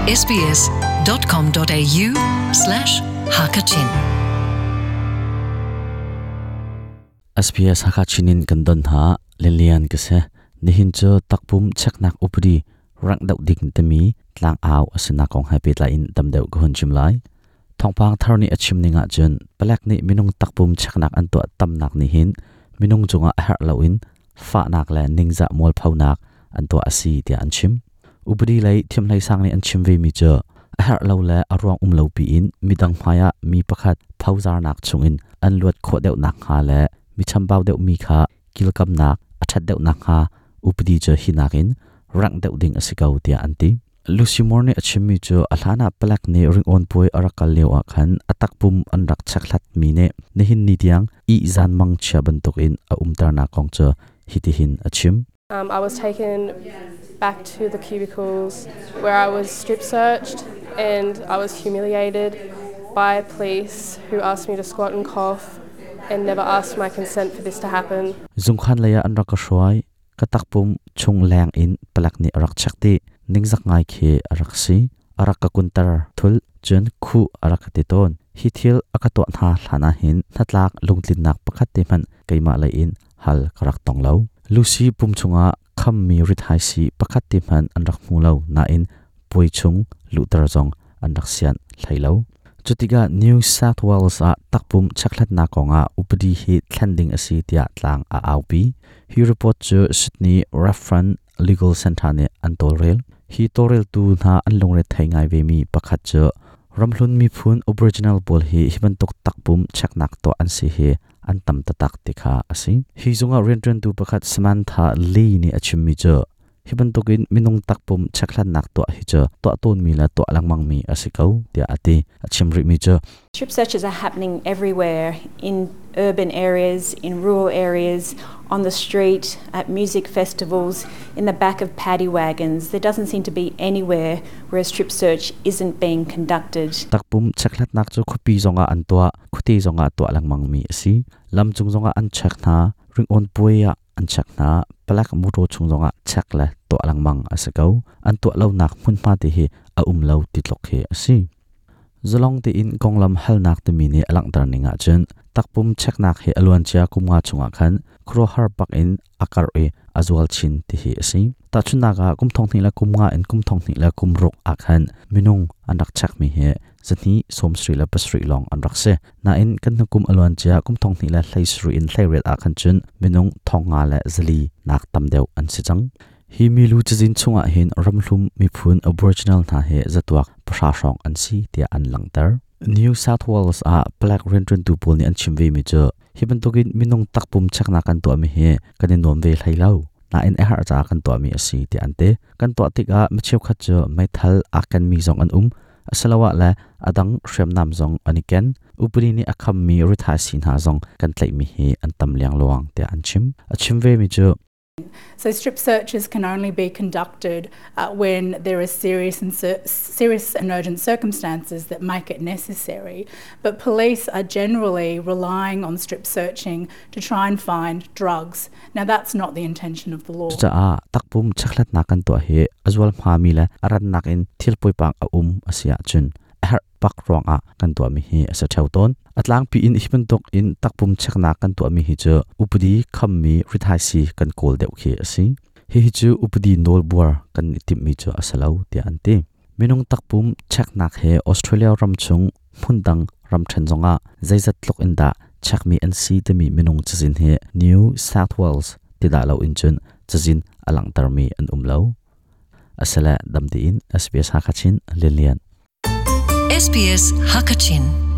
sbs.com.au slash hakachin SBS Hakachin in kan don ha Lilian ka se nihin cu takpum cheknak upadi rank deuh ding timi tlang au asina kong hai pe in tam deuh ka hun chim lai thongpang thar nih a chim ning ah cun palek nih minung takpum cheknak an tuah tamnak nih hin minung cungah a herh loin fahnak le ningzah mualphonak an tuah a si tiah an chim. Upadi lei thiamhlei sang nih an chim ve mi cu a herh lo le a ruang um lo piin midang hmaiah mi pakhat phozarnak chungin an luat khawh deuh nakhnga le mi chambau deuh mi kha kilkamnak a ṭhat deuh nakhnga upadi cu hi nakin rangh deuh ding a si ko tiah an ti. Lucy Moore nih a chimmi cu a hlanah palek nih ringawn puai a rak kal lio ah khan a takpum an rak chekhlatmi nih nihin ni tiang ihzan mangchia bantukin a umternak kong cu hitihin a chim. Um, I was taken back to the cubicles where I was strip searched and I was humiliated by police who asked me to squat and cough and never asked my consent for this to happen. Zungkhan lei ah an rak ka hruai. Ka takpum chung leng in palek nih a rak check dih. Ningzak ngai khi a rak si. A rak ka kunter thul cun khuh a rak ka ti tawn. Hi thil a ka tuah hna hlan ah hin hnatlak lungtlinnak pakhat te hmanh keimah lei in hal ka rak tong lo. Lucy pum chungah khammi rithaisi pakhat te hmanh an rak hmu lo nain puai chung luhter zong an rak sianh hlei lo. Cutikah New South Wales ah takpum chekhlatnak kongah upadi hi thlen ding a si tiah tlang a aupi. Hi report cu Sydney Reference Legal Centre nih an tawlrel. Hi tawlreltu hna an lungre thei ngai vemi pakhat cu ramhlun miphun Aboriginal pawl hi hi bantuk takpum cheknak tuah an si hi an tam taktak ti kha a si. Hi zungah rianṭuantu pakhat Samantha Lee nih a chimmi cu Hi bantukin minung takpum chekhlatnak tuah hi cu tuah tawnmi le tuah lengmangmi a si ko tiah a ti. A chim rihmi cu Strip searches are happening everywhere in urban areas, in rural areas, on the street, at music festivals, in the back of paddy wagons. There doesn't seem to be anywhere where a strip search isn't being conducted. Takpum chekhlatnak cu khuapi zongah an tuah, khuate zongah tuah lengmangmi a si. Lamcung zongah an check hna, ringawn puai ah an check hna. Palek mawṭaw chung zongah check le tuah lengmang a si ko. An tuah lonak hmunhma te hi a um lo ti tluk hi a si. Zalong tein konglam halnak timi nih a langhter ning ahcun takpum checknak hi a luancia kum nga chungah khan khuaruahhar bak in a karh i a zual chin ti hi a si. Tahchunhnak ah kum thong hnih le kum nga in kum thong hnih le kum ruk ah khan minung an rak checkmi hi zahnih sawmsarih le pasarih lawng an rak si. Nain kan hnukum a luancia kum thong hnih le hleisarih in hleiriat ah khan cun minung thong nga le zali nak tam deuh an si cang. Hi milu cazin chungah hin ramhlum miphun Aboriginal hna hi zatuak pahra hrawng an si tiah an langhter. New South Wales ah palek rianṭuantu pawl nih an chim vemi cu hi bantukin minung takpum cheknak kan tuahmi hi kan i nuam ve hlei lo. Nain a herh caah kan tuahmi a si tiah an ti. Kan tuah tikah mi cheukhat cu meithal aa kenmi zong an um. Asiloah le a dang hriamnam zong an i ken. Upadi nih a khammi rithaisii hna zong kan tlaihmi hi an tam liangluang tiah an chim. A chim vemi cu So strip searches can only be conducted uh, when there are serious and serious and urgent circumstances that make it necessary. But police are generally relying on strip searching to try and find drugs. Now that's not the intention of the law. Cucaah takpum chekhlatnak kan tuah hi a zual hmami le a rannak in thil poipang a um a si ahcun a herh bak ruangah kan tuahmi hi a si ṭheo tawn. A tlangpi in hi bantuk in takpum cheknak kan tuahmi hi cu upadi khammi rithaisi kan kawl deuh khi a si. Hihi cu upadi nawlbuar kan i timhmi cu a si lo tiah an ti. Minung takpum cheknak he Australia ram chung hmundang ramṭhen zongah zeizat tluk in dah chekmi an si timi minung cazin hi New South Wales ti dah lo in cun cazin a langhtermi an um lo. Asile dam tein SBS Hakachin Lilian. SBS Hakachin.